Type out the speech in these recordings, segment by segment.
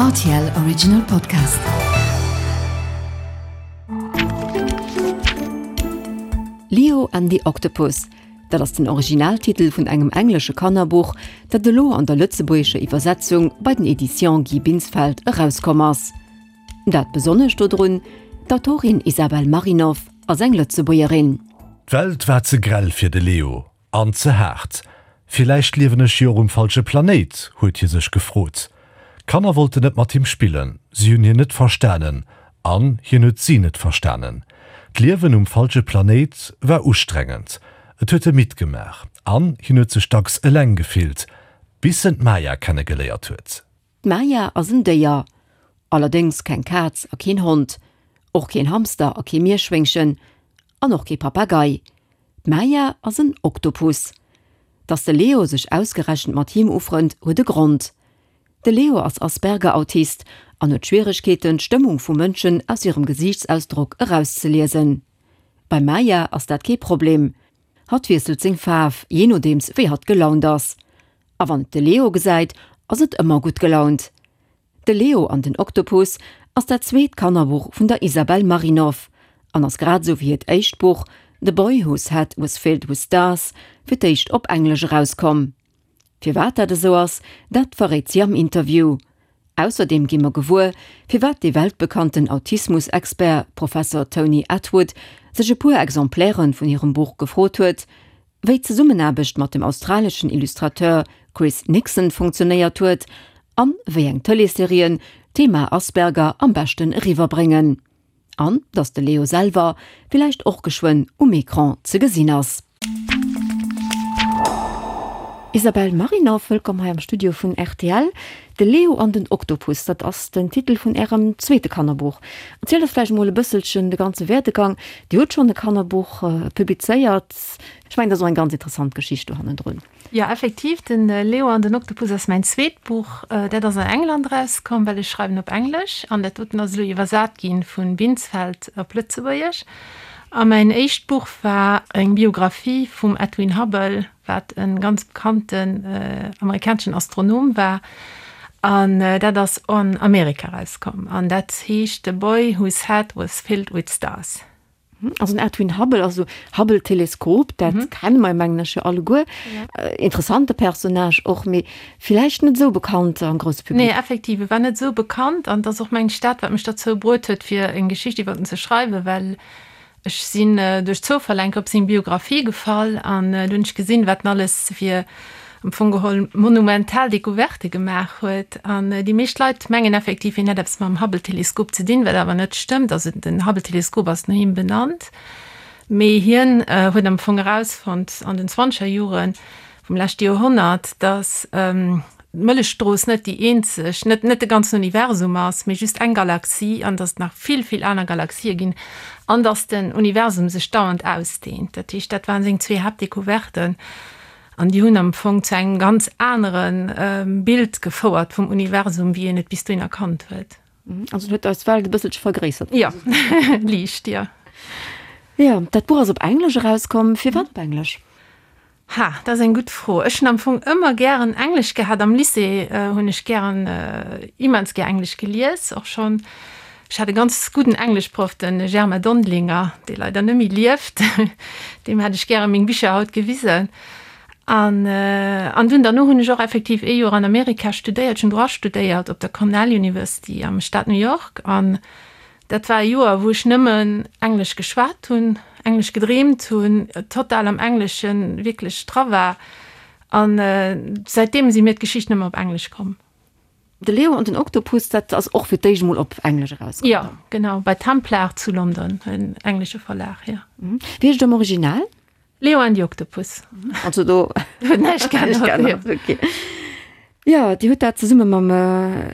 Rtl Original Podcast. Leo and the Octopus, dat ass den Originaltitel vun engem englesche Kannerbuch, dat elo an der lëtzebuergescher Iwwersetzung bei den Editions Guy Binsfeld erauskomm ass. Dat Besonnescht dodrun, D'Autorin Isabel Marinov ass eng Lëtzebuergerin. D'Welt war ze grell fir de Leo. An ze haart. Villäicht liewen ech jo och um falsche Planéit, huet hie sech gefrot. D'Kanner wollten net mat him spillen, si hunn hien net verstanen an hien huet si net verstanen. D'Liewen um falsche Planéit war ustrengend, et huet e midd gemaach an hien huet sech dacks eleng gefillt, bis en d'Maya kennegeléiert huet. D'Maya ass en Déier. Allerdéngs keng Kaz a keen Hond, och keen Hamster a kee Mierschwéngchen an och kee Papagei. D'Maya ass en Oktopus. Dass de Leo sech ausgerechent mat him ufrënnt, huet e Grond. De Leo ass Asperger-Autist an huet Schwieregkeeten, d'Stëmmung vu Mënschen aus hirem Gesiichtsausdrock erauszeliesen. Beim Maya ass dat kee Problem. Hatt wiesselt seng Faarf, jee nodeems wéi hatt gelaunt ass. A wann et de Leo gesäit, ass et ëmmer gutt gelaunt. De Leo an den Oktopus ass dat zweet Kannerbuch vun der Isabel Marinov an ass grad esou wéi hiert éischt Buch The Boy Whose Head Was Filled With Stars fir d'éischt op Englesch erauskomm. Firwat dat esou ass, dat verréit si am Interview. Ausserdeem gi mer gewuer, firwat dee weltbekannten Autismus-Expert Professor Tony Attwood sech e puer Exemplaire vun hirem Buch gefrot huet, wéi d'Zesummenaarbecht mat dem australeschen Illustrateur Chris Nixon funktionéiert huet an wéi eng Tëleesserien d'Thema Asperger am beschten eriwwerbréngen. An dass de Leo selwer villäicht och geschwënn um Ecran ze gesinn ass. Isabelle Marinov, wëllkomm hei am Studio vun rtl. De Leo an den Oktopus, dat ass den Titel vun Ärem zweete Kannerbuch. Erzielt eis vläicht emol e bësselchen de ganze Werdegang. Dir hutt schonn e Kannerbuch publizéiert. Ech mengen, dat ass och eng ganz interessant Geschicht do hannendrun. Jo, effektiv, den Leo an den Oktopus ass mäin zweet Buch. Dat ass an England erauskomm, well ech schreiwen op Englesch. An dat doten ass elo iwwersat gi vu Binsfeld op Lëtzebuergesch. A mäin éischt Buch war eng Biographie vum Edwin Hubble, wat e ganz bekannten amerikaneschen Astronom war. An dat ass an Amerika erauskomm. An dat heescht The Boy Whose Head Was Filled With Stars. Also den Edwin Hubble, also Hubble-Teleskop, dat kenne mer mengen ech jo alleguer. Interessante Personnage och, mee villäicht net esou bekannt am grousse Public. Nee, effektiv, e war net esou bekannt an et ass och mengen ech dat, wat mech derzou bruet huet, fir eng Geschicht iwwer en ze schreiwen, well ech sinn duerch Zoufall enk op seng Biographie gefall an do hunn ech gesinn, wat en alles fir am Fong geholl monumental Decouverte gemaach huet. An déi meescht Leit mengen effektiv, hien hätt eppes mam Hubble-Teleskop ze dinn, wat awer net stëmmt. Also den Hubble-Teleskop ass no him benannt, mee hien huet am Fong erausfonnt an den zwanzeger Jore vum leschte Joerhonnert, datt d'Mëllechstrooss net déi eenzeg, net net de ganzen Universum ass, mee just eng Galaxie an datt et nach vill, vill aner Galaxië ginn an datt den Universum sech dauernd ausdehnt. Dat heescht, dat waren seng zwee Haaptdecouverten. An déi hunn am Fong zu engem ganz anere Bild gefouert vum Universum, wéi een et bis dohin erkannt huet. Also en huet eis Welt e bësselche vergréissert. Jo, liicht, jo. Jo, dat Buch ass op Englesch erauskomm. Firwat op Englesch? Ha, dat ass eng gutt Fro. Ech hunn am Fong ëmmer gären Englesch gehat. Am Lycée hunn ech gären, immens gär Englesch gelies, och schonn. Ech hat e ganz gudden Engleschproff, de Germain Dondelinger, dee leider net méi lieft. Deem hätt ech gäre meng Bicher haut gewisen. An, an dunn derno hunn ech och effektiv ee Joer an Amerika studéiert. Ech hunn Droit studéiert op der Cornell University am Staat New York. An dat war e Joer, wou ech nëmmen Englesch geschwat hunn, Englesch gedreemt hunn, total am Engleschen wierklech dra war. An säitdeem si mir d'Geschichten ëmmer op Englesch komm. De Leo an den Oktopus, dat ass och fir d'éischt emol op Englesch erauskomm. Jo, genau, bei Templar zu London, en englesche Verlag, jo. Wéi heescht et am Original? Leo and the Octopus. Also do huet näischt geännert. Okay. Jo, Dir hutt dat zesumme mam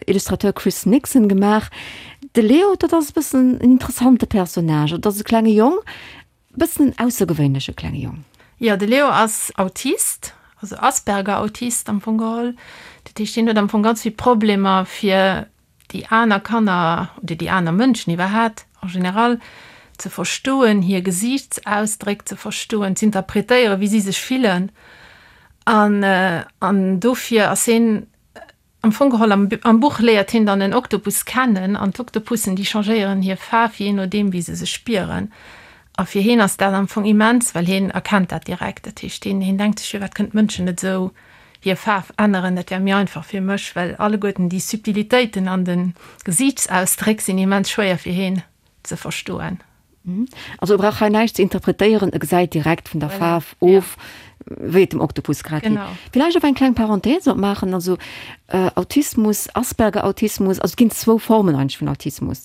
Illustrateur Chris Nixon gemaach. De Leo, dat ass e bëssen en interessante Personnage. Et ass e klenge Jong, Bëssen en aussergewéinleche klenge Jong. Jo, de Leo ass Autist, also Asperger-Autist am Fong geholl. Dat heescht, hien huet am Fong ganz vill Problemer, fir déi aner Kanner oder déi aner Mënschen iwwerhaat en général ze verstoen, hir Gesiichtsausdréck ze verstoen, z'interpretéieren, wéi si sech fillen. An, an dofir ass hien. Am Fong geholl am am Buch léiert hien dann en Oktopus kennen an d'Oktopussen déi changéieren hir Faarf jee nodeem wéi se sech spieren. A fir hien ass dat am Fong immens, well hien erkennt dat direkt. Dat heescht hien hien denkt sech, firwat kënnen d'Mënschen net esou hir Faarf änneren, dat wär méi einfach fir mech, well alleguerten déi Subtilitéiten an de Gesiichtsausdréck sinn immens schwéier fir hien ze verstoen. Also e brauch hei näischt ze interpretéieren, e gesäit direkt vun der Faarf of, wéi et dem Oktopus grad geet. Villäicht och eng kleng Parenthèse opmaachen, also Autismus, Asperger-Autismus, also et ginn zwou Formen eigentlech vun Autismus.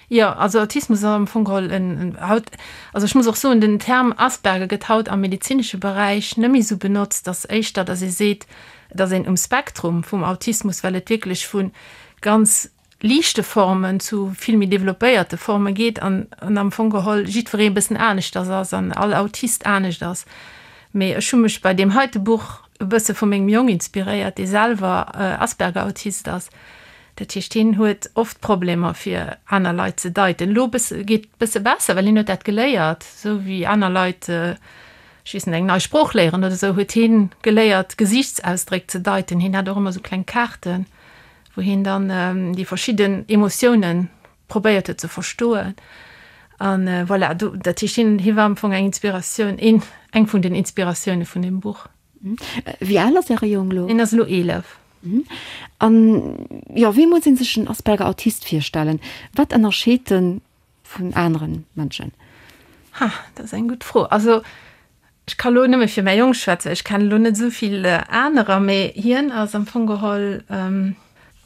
Jo, also Autismus ass am Fong geholl en, haut, also ech muss och soen, den Term Asperger gëtt haut am medezinesche Beräich net méi esou benotzt, ass éischter, datt ee seet, et ass een um Spektrum vum Autismus, well et wierklech vu ganz liichte Formen zu vill méi developpéierte Forme geet an am Fong geholl jiddweree e bëssen aneschters ass an all Autist anescht ass. Mee ech hu mech bei deem heite Buch e bësse vu mengem Jong inspiréiert, dee selwer Asperger-Autist ass. Dat heescht, hien huet oft Problemer fir aner Leit ze deiten. Elo bësse geet bësse besser, well hien huet dat geléiert, esou wéi aner Leit, ech weess net, eng nei Sprooch léieren oder esou, huet hien geléiert Gesiichtsausdréck ze deiten. Hien hat och ëmmer esou kleng Kaarten, wou hien dann déi verschidden Emotiounen probéiert huet ze verstoen. An voilà, do, dat heescht, hien, hie war am Fong eng Inspiratioun, een, eng vun den Inspiratioune vun deem Buch. Wéi al ass Äre Jong elo? Hien ass elo 11. An, jo, wéi muss ee sech en Asperger-Autist virstellen? Wat ënnerscheet en vun anere Mënschen? Ha, dat ass eng gutt Fro. Also, ech ka lo nëmme fir mäi Jong schwätzen, ech kennen elo net esou vill anerer, mee hien ass am Fong geholl,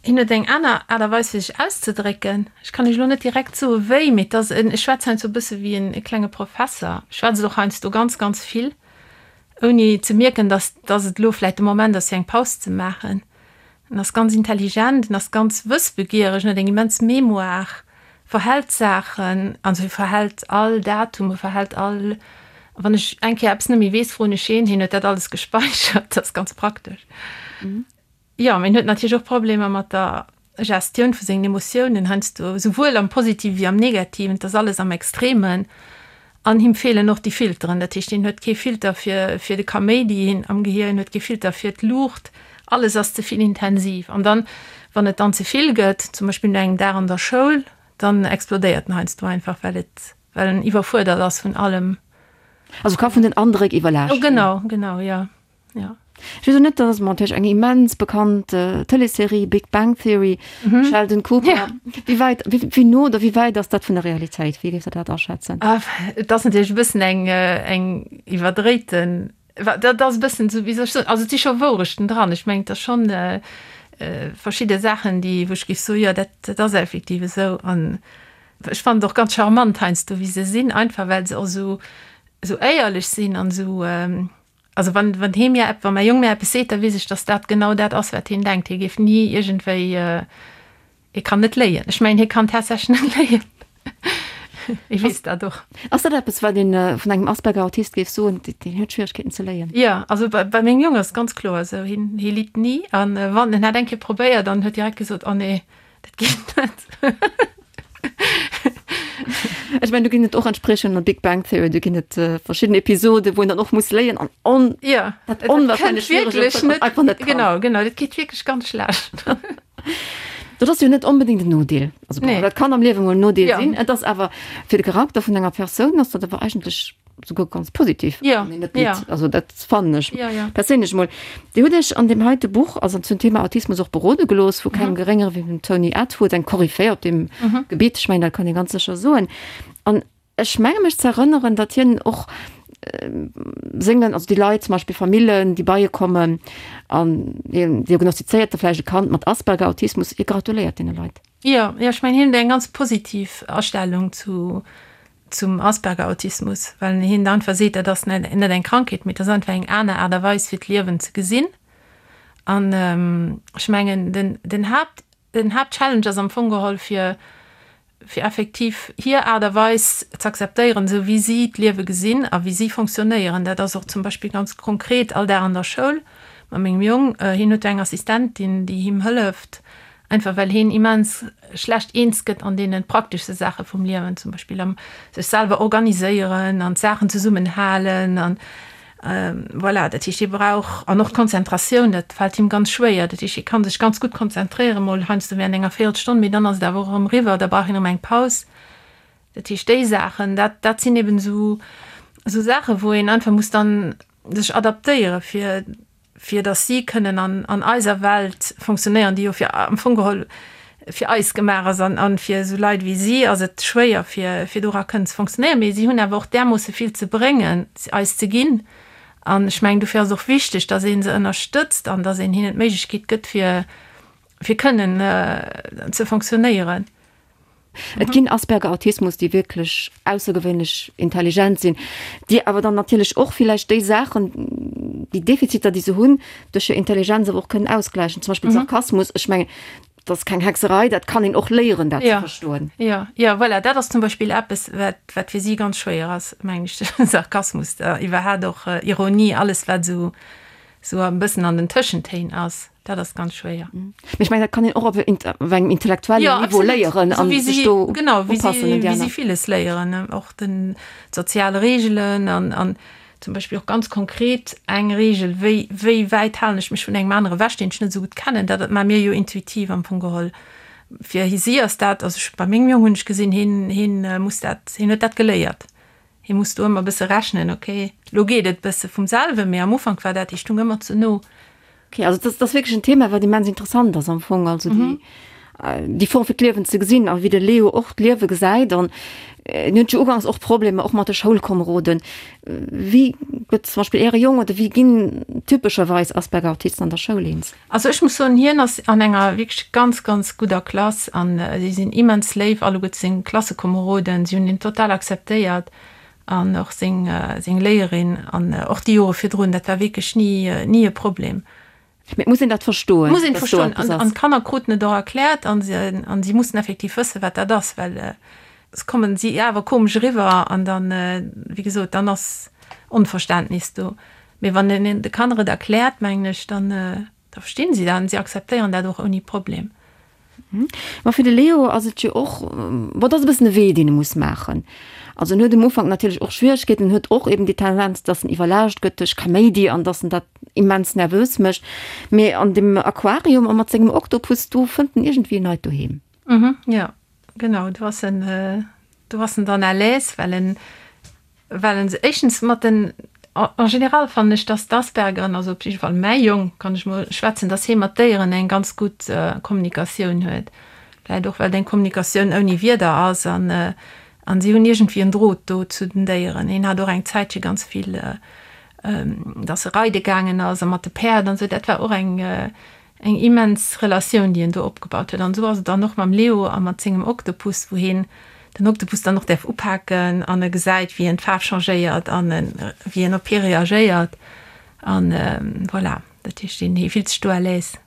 hien huet eng aner Aart a Weis fir sech auszedrécken. Ech kann iech elo net direkt soe wéi, mee et ass en, e schwätzt heiansdo e bësse wéi en e klenge Professer, schwätzt och heiansdo ganz, ganz vill, ouni ze mierken, dass, dass et elo vläicht de Moment ass fir eng Paus ze maachen. En ass ganz intelligent, en ass ganz wëssbegiereg, en huet eng immens Mémoire, verhält Saachen, also hie verhält all Datum, e verhält all, wann ech eng Kéier eppes net méi weess, froen ech hien, hien huet dat alles gespäichert, dat ass ganz praktesch. Jo, mee en huet natierlech och Problemer mat der Gestioun vu sengen Emotiounen heiansdo, esouwuel am Positive wéi am Negativen, et ass alles am Extremen. An him feelen och déi Filteren, dat heescht, hien huet kee Filter fir fir de Kaméidi hien am Gehier, hien huet kee Filter fir d'Luucht, alles ass ze vill intensiv. An dann, wann et dann ze vill gëtt, zum Beispill no engem Dag an der Schoul, dann explodéiert en heiansdo einfach, well et well en iwwerfuerdert ass vun allem. Also ka vun den Andréck iwwerlaascht ginn. Genau, genau, jo. Ja. Ech weess och net, dat ass natierlech eng immens bekannt Tëleesserie, Big Bang Theory, mhm. Sheldon Cooper. Ja. Wéi wäit, wéi, wéi no oder wéi wäit ass dat vun der Realitéit? Wéi géifs de dat aschätzen? Ah, et ass natierlech e bëssen eng, eng iwwerdréiten, dat ass e bëssen esou, wéi soll ech soen, also et si scho Wourechten dran. Ech mengen, et ass schonn äh, verschidde Saachen, déi, wou ech géif soen, jo, dat, dat ass effektiv esou. An ech fannen et och ganz charmant heiansdo, wéi se sinn, einfach well se och esou, esou éierlech sinn an esou, Also wann, wann hee mir epp, wann mäi Jong mir eppes seet, da weess ech, datt dat genau dat ass, wat hien denkt. Hie géif ni iergendwéi, hie kann net léien. Ech mengen, hie kann tatsächlech net léien. Hie weess dat och. Ass dat eppes, wat ee vun engem Asperger-Autist géif soen, deen huet Schwieregkeeten ze léien? Jo, also bei, bei mengem Jong ass et ganz kloer esou. Hien, hie litt ni. An wann, en hat eng Kéier probéiert an huet direkt gesot, Oh nee, Dat geet net. Ech mengen, do ginn et och entsprechend an Big Bang Theory, do ginn et äh, verschidden Episoden, wou en dann och muss léien an on, ja, dat onwahrscheinlech wierklech net, einfach net kann. Genau, genau, dat geet wierklech ganz schlecht. Dat ass jo net onbedéngt en Nodeel. Also, nee. Dat kann am Liewen mol en Nodeel ja. sinn. Et ass awer fir de Charakter vun enger Persoun ass dat awer eigentlech souguer ganz positiv. Ja, net ja. Also dat fannen ech ja, ja. perséinlech mol. Dir hutt Iech an deem heite Buch, also zum Thema Autismus och berode gelooss vu kengem mhm. geréngere wéi dem Tony Attwood, eng Koryphäe op dem mhm. Gebiet, ech mengen, dat kann ee ganz sécher soen. An ech menge mech ze erënneren, datt hien och äh, sengen, also déi Leit, zum Beispill Famillen, déi bei e kommen an hien diagnostizéiert da vläicht e Kand mat Asperger, Autismus, hie gratuléiert deene Leit. Jo, jo, ech mengen, hien huet eng ganz positiv Astellung zu zum Asperger-Autismus, well hien da einfach seet, dat ass net net eng Krankheet, mee dat ass einfach eng aner Aart a Weis fir d'Liewen ze gesinn. An ech mengen den den Haapt den Haaptchallenge ass am Fong geholl fir fir effektiv hir Aart a Weis z'akzeptéieren, esou wéi si d'Liewe gesinn a wéi si fonctionnéieren. Dat ass och zum Beispill ganz konkret all Dag an der Schoul mat mengem Jong. Hien huet do eng Assistentin, déi him hëlleft, Einfach well heen immens schlecht eens gëtt an deene prakteschste Saache vum Liewen, zum Beispill am sech selwer organiséieren an d'Saachen zesummen halen an. Voilà, dat heescht, hie brauch, an och d'Konzentratioun, dat fält him ganz schwéier. Dat heescht, hie ka sech ganz gutt konzentréieren, mol heiansdo während enger Véierelstonn, mee dann ass et awer och erëm eriwwer, da brauch hien erëm eng Paus. Dat heescht, déi Saachen, dat, dat sinn eben esou, esou Saachen, wou een einfach muss dann sech adaptéieren, fir, fir datt si kënnen an, an eiser Welt fonctionnéieren, déi jo fir, am Fong geholl fir eis gemaach ass. An, an fir esou Leit wéi si ass et schwéier, fir, fir dora kënnen ze fonctionnéieren. Mee si hunn awer och därmoosse vill ze bréngen, eis ze ginn. An ech mengen, dofir ass et och wichteg, datt ee se ënnerstëtzt an datt een hinnen d'Méiglechkeet gëtt, fir, fir kënnen ze fonctionnéieren. Et ginn Asperger-Autismus, déi wierklech aussergewéinlech intelligent sinn, déi awer dann natierlech och villäicht déi Saachen, déi Defiziter, déi se hunn, duerch hir Intelligenz awer och kënnen ausgläichen. Zum Beispill Sarkasmus, ech mengen, dat ass keng Hexerei, dat kann een och léieren, dat ze verstoen. Jo, jo, voilà, dat ass zum Beispill eppes, wat, wat fir si ganz schwéier ass, mengen ech, Sarkasmus, iwwerhaapt och Ironie, alles wat esou, esou e bëssen an den Tëschentéin ass. Dat ass ganz schwéier. Mee ech mengen, dat kann een och op engem intellektuellen Niveau léieren an sech do upassen un déi aner. Genau, wéi si villes léieren, och den d'sozial Reegelen an an zum Beispill och ganz konkret eng Reegel, wéi wéi wäit halen ech mech vun engem anere ewech, deen ech net esou gutt kennen. Dat maache mir jo intuitiv am Fong geholl. Fir si ass dat, also ech bei mengem Jong hunn ech gesinn, hien hien muss dat, hien huet dat geléiert. Hie muss do ëmmer e bësse rechnen, ok, lo geet et bësse vum selwen, mee am Ufank war dat, hie stung ëmmer ze no. Ok, also dat ass wierklech en Thema, wat immens interessant ass am Fong, also déi, déi Form fir d'Liewen ze gesinn a wéi de Leo och d'Liewe gesäit. An en huet jo uganks och Problemer och mat de Schoulkomeroden. Wéi gëtt zum Beispill Äre Jong oder wéi ginn typescherweis Asperger-Autisten an der Schoul eens? Also ech muss soen, hien ass an enger wierklech ganz, ganz gudder Klass an si sinn immens léif alleguerte seng Klassekomeroden. Si hunn hien total akzeptéiert an och seng, seng Léierin an och déi Jore virdrun, dat war wierklech ni, ni e Problem. Mee et muss een dat verstoen, Et muss een et verstoen an, an d'Kanner kruten et och erkläert an se, an si mussen effektiv wëssen, wat dat ass, well soss kommen si awer komesch eriwwer an dann, wéi gesot, dann ass Onverständnis do. Mee wann een de Kanner et erkläert, mengen ech, dann da verstinn si dat an si akzeptéieren dat och ouni Problem. Ma fir de Leo ass et jo och, bon, et ass e bëssen e Wee, deen e muss maachen. Also en huet um Ufank natierlech och Schwieregkeeten, en huet och eben déi Tendenz, dass en iwwerlaascht gëtt duerch Kaméidi an dass en dat immens nervös mécht. Mee an dem Aquarium a mat sengem Oktopus, do fënnt en iergendwéi en neit Doheem. Jo, genau, do ass en, do ass en dann à l'aise, well en Well en se éischtens mat den, en général fannen ech, dass d'Aspergeren, also op jidde Fall mäi Jong, kann ech mol schwätzen, dass hie mat Déieren eng ganz gutt Kommunikatioun huet. Vläicht och, well et eng Kommunikatioun ouni Wierder ass an an si hunn iergendwéi en Drot do zu den Déieren. Hien hat och eng Zäitche ganz vill, dass e reide gaangen ass a mat de Päerd an esou, dat war och eng Eng immens Relatioun, déi en do opgebaut huet. An esou ass et dann och mam Leo a mat sengem Oktopus, wou hien den Oktopus dann och däerf upaken an e gesäit, wéi en d'Faarf changéiert an wéi en op hie reagéiert. An voilà, dat heescht, hie fillt sech do à l'aise,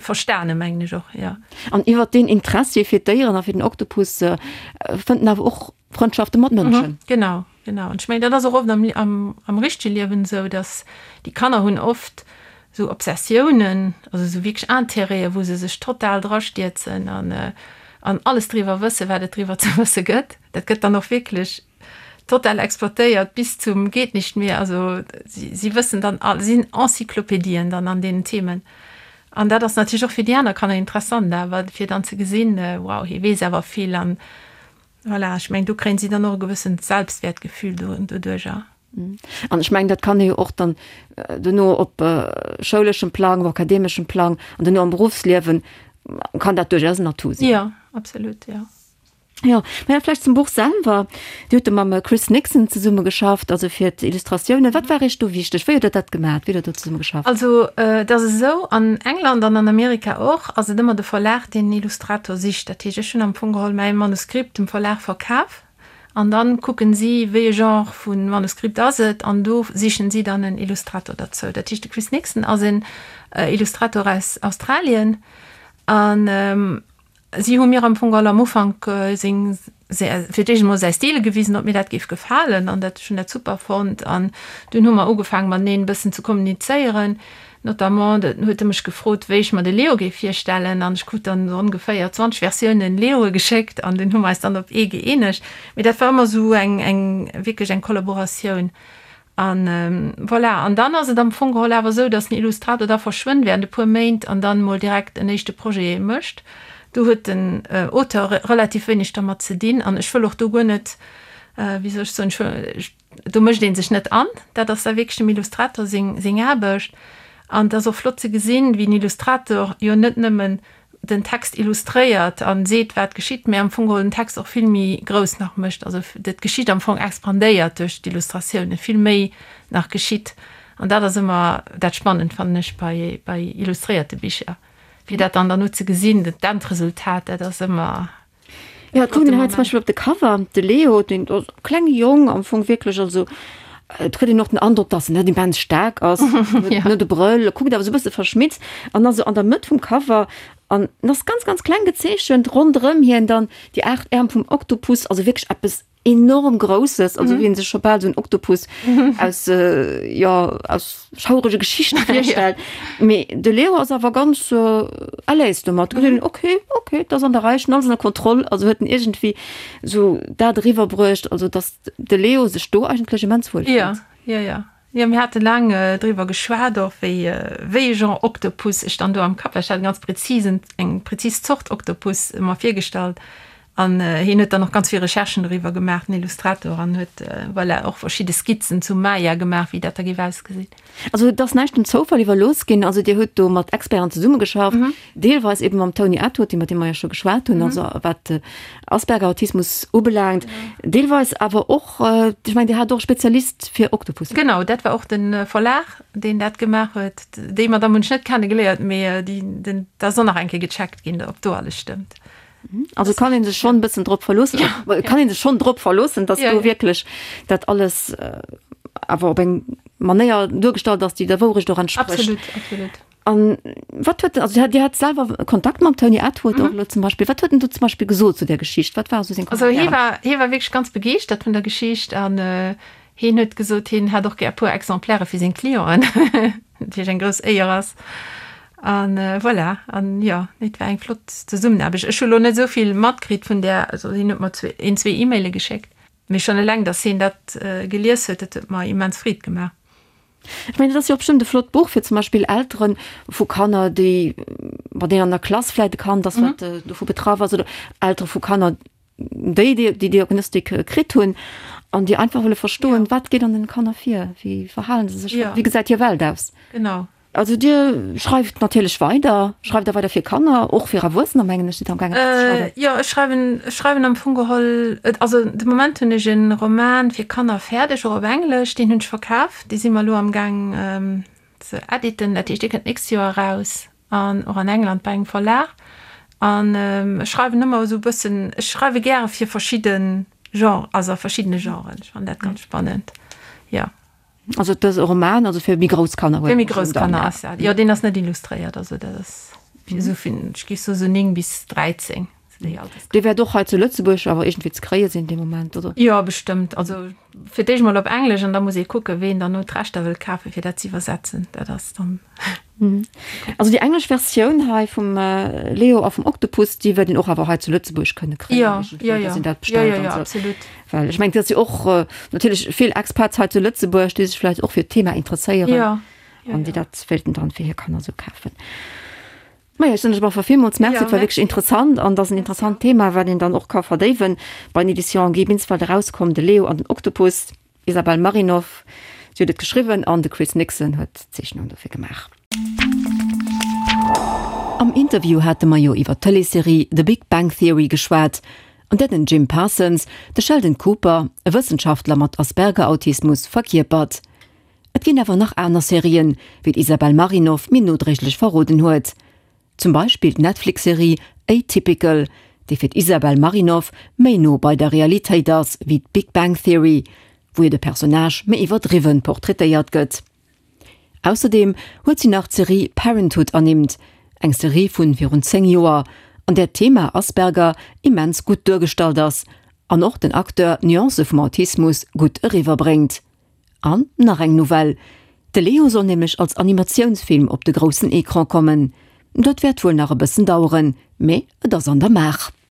verstane mengen ech och, jo. An iwwert deen Interessi fir d'Déieren a fir den Oktopus fënnt en awer och Frëndschafte mat Mënschen. Genau, genau. An ech mengen, dat ass och oft am, am, am richtege Liewen esou, dass déi Kanner hunn oft esou Obsessiounen, also esou wierklech Intérêten, wou se sech total drastierzen an, an alles driwwer wëssen, wat et driwwer ze wësse gëtt. Dat gëtt dann och wierklech total exploitéiert bis zum geht nicht mehr. Also si, si wëssen dann all, sinn Encyclopédien dann an deenen Themen. An dat ass natierlech och fir déi aner Kanner interessant awer, fir dann ze gesinn, wow, hie weess awer vill an Voilà, ech mengen, do kréien si dann och e gewëssent Selbstwäertgefühl doduercher. An ech mengen, dat kann ee jo och dann duerno op schouleschem Plang, op akademeschem Plang an duerno am Beruffsliewen kann dat duerchaus en Atout sinn. Jo, absolut, jo. Jo, mä vläicht zum Buch selwer. Dir hutt do mam Chris Nixon zesumme geschafft, also fir d'Illustratiounen. Wat war Iech do wichteg? Wéi hutt Der dat gemaach? Wéi hutt Der do zesumme geschafft? Also, et ass esou, an England an an Amerika och, ass et ëmmer de Verlag, deen en Illustrator sicht. Dat heescht, ech hunn am Fong geholl mäi Manuskript dem Verlag verkaf an dann kucken si, wéi e Genre vu Manuskript ass et an do sichen si dann en Illustrator derzou. Dat heescht, de Chris Nixon ass en Illustrator aus Australien an Si hu mir am Fong all am Ufank seng, fir d'éischt emol säi Stil gewisen, ob mir dat géif gefalen, an dat, ech hunn dat super fonnt. An dunn hu mer ugefaangen, mateneen e bëssen ze kommunizéieren. Notamment huet e mech gefrot, wéi ech mer de Leo géif virstellen, an ech krut dann esou ongeféier 20 Versiounen Leoe geschéckt, an dunn hu mer eis dann op ee gëeenegt. Mee dat war ëmmer esou eng, eng, wierklech eng Kollaboratioun. An voilà, an dann ass et am Fong geholl awer esou, dass den Illustrator da verschwënnt während e puer Méint an dann emol direkt en éischte Projet mécht. Do huet den Auteur relativ wéineg dermat ze dinn an ech wëll och do guer net, wéi soll ech soen, ech wëll, do mécht ee sech net an, dat ass da wierklech dem Illustrator seng, seng Aarbecht. An et ass och flott ze gesinn, wéi den Illustrator jo net nëmmen den Text illustréiert an seet wat geschitt, mä am Fong geholl den Text och vill méi grouss nach mécht, also d'Geschicht am Fong expandéiert duerch d'Illustratiounen, vill méi nach geschitt. An dat ass ëmmer dat Spannend, fannen ech, bei, bei illustréierte Bicher, fir dat dann derno ze gesinn, d'Endresultat, dat ass ëmmer. Jo, et kuckt een hei zum Beispill op de Cover, de Leo, deen ass e klenge Jong am Fong wierklech, also et kritt een och den Androck, dass en net immens staark ass, huet net e Brëll, e kuckt awer esou e bësse verschmitzt an ass esou an der Mëtt vum Cover an en ass ganz, ganz kleng gezeechent, ronderëm hien dann déi 8 Äerm vum Oktopus, also wierklech eppes enorm Grousses, also wéi een sech scho bal esou en Oktopus aus, jo, aus schaurege Geschichte virstellt. Mee de Leo ass awer ganz à l'aise domat. Huet en, ok, ok, et ass an der Rei, ech hunn alles ënner Kontroll. Also huet en iergendwéi esou dat eriwwerbruecht, also datt de Leo sech do eigentlech immens wuel fillt. Jo, jo, jo. Jo, mir hate laang driwwer geschwat och, wéi, wéi e Genre Oktopus ech dann do am Kapp hat. Ech hat e ganz prezisen, eng prezis Zort Oktopus mer virgestallt. An hien huet dann och ganz vill Recherchen doriwwer gemaach, den Illustrator, an huet, voilà, och verschidde Skizzen zum Maya gemaach, wéi dat da géif ausgesinn. Also et ass näischt dem Zoufall iwwerlooss ginn. Also Dir hutt do mat Experten zesummegeschafft, deelweis eben mam Tony Attwood, iwwer dee mer jo scho geschwat hunn, also wat Asperger-Autismus ubelaangt, deelweis awer och, ech mengen Dir hat och e Spezialist fir Oktopussen. Genau, dat war och de Verlag, deen dat gemaach huet. Déi Madamm hunn ech net kennegeléiert, mee déi, den, dat ass och nach eng Kéier gecheckt ginn, ob do alles stëmmt. Also kann een sech schonn e bëssen drop verloossen, ja. kann een sech schonn drop verloossen, dass ja, du ja. wierklech dat alles äh, awer op eng Manéier duergestallt ass, déi der Wourecht och entspricht. Absolut, absolut. An wat huet also Dir hat selwer Kontakt mam Tony Attwood mhm. och lo zum Beispill. Wat huet en du zum Beispill gesot zu der Geschicht? Wat war so seng Also hie war, hie war wierklech ganz begeeschtert vun der Geschicht an äh, hien huet gesot, hien hätt och gär e puer Exemplaire fir seng Clienten. Natierlech eng grouss Éier ass. An voilà, an jo, nee, et war eng flott Zesummenaarbecht. Ech hu lo net esou vill matkritt vun där, also hien huet mer zwee, een, zwee E-Maile geschéckt, mee schonn eleng, datt hien dat gelies huet, dat huet mer immens Freed gemaach. Ech mengen, dat ass jo och bestëmmt e flott Buch fir zum Beispill Eltere vu Kanner, déi, bei deenen an der Klass vläicht e Kand ass, wat dovu betraff ass, oder Eltere vu Kanner, déi déi déi Diagnostik kritt hunn an déi einfach wëlle verstoen, ja. wat geet an den Kanner vir, wéi verhalen se sech, ja. wéi gesäit hir Welt aus. Genau. Also Dir schreift natierlech weider, schreift der weider fir Kanner, och fir Erwuessener mengen ech, sidd am gaangen ze schreiwen. Äh, jo, ech schreiwen, ech schreiwen am Fong geholl, also de Moment hunn ech e Roman fir Kanner fäerdeg, och op Englesch, deen hunn ech verkaf, dee si mer elo am gaang ähm, ze editen, dat heescht dee kënnt d'nächst Joer eraus. An och an England bei engem Verlag. An ech schreiwen ëmmer esou e bëssen, ech schreiwe gäre fir verschidde Genres, also a verschiddene Genren. Ech fannen dat ganz spannend, jo. Also et ass e Roman, also fir méi grouss Kanner? Fir méi grouss Kanner ass dat, jo. Deen ass net illustréiert, also dat ass fir esou vun, ech géif soen, esou 9 bis 13. Dee wäert och hei zu Lëtzebuerg awer iergendwéi ze kréie sinn dee Moment, oder? Jo, bestëmmt. Also fir d'éischt mol op Englesch an da muss ee kucken, ween dann no d'Rechter wëll kafen, fir dat ze iwwersetzen. Dat ass dann. Also déi englesch Versioun hei vum Leo a vum Oktopus, déi wäert een och awer hei zu Lëtzebuerg kënne kréien. Jo, jo, jo. Dass een dat bestellt an esou. Absolut. Well ech mengen, et ass jo och natierlech vill Expats hei zu Lëtzebuerg, déi sech vläicht och fir d'Thema interesséieren. Jo, jo. An déi dat wéilten dann fir hir Kanner esou kafen. Maja, ech soen lech op alle Fall villmools Merci. Et war wierklech interessant an et ass en interessant Thema, wat een dann och ka verdéiwen. Bei den Editions Guy Binsfeld erauskomm, De Leo an den Oktopus, Isabelle Marinov, si huet et geschriwwen an de Chris Nixon huet d'Zeechnung dofir gemaach. Am Interview hate mer jo iwwer d'Tëleesserie The Big Bang Theory geschwat, an där den Jim Parsons de Sheldon Cooper, e Wëssenschaftler mat Asperger-Autismus, verkierpert. Et ginn awer nach aner Serien, wéi d'Isabel Marinov mir nodréiglech verroden huet. Zum Beispill d'Netflix-Serie Atypical, déi fir d'Isabel Marinov méi no bei der Realitéit ass wéi d'Big Bang Theory, wou jo de Personnage méi iwwerdriwwen portraitéiert gëtt. Ausserdeem huet si nach d'Serie Parenthood ernimmt, eng Serie vun virun 10 Joer, an där d'Thema Asperger immens gutt duergestallt ass an och den Acteur d'Nuancë vum Autismus gutt eriwwerbréngt. An nach eng Nouvelle, De Leo soll nämlech als Animatiounsfilm op de groussen Ecran kommen. Dat wäert wuel nach e bëssen daueren, mee et ass an der Maach.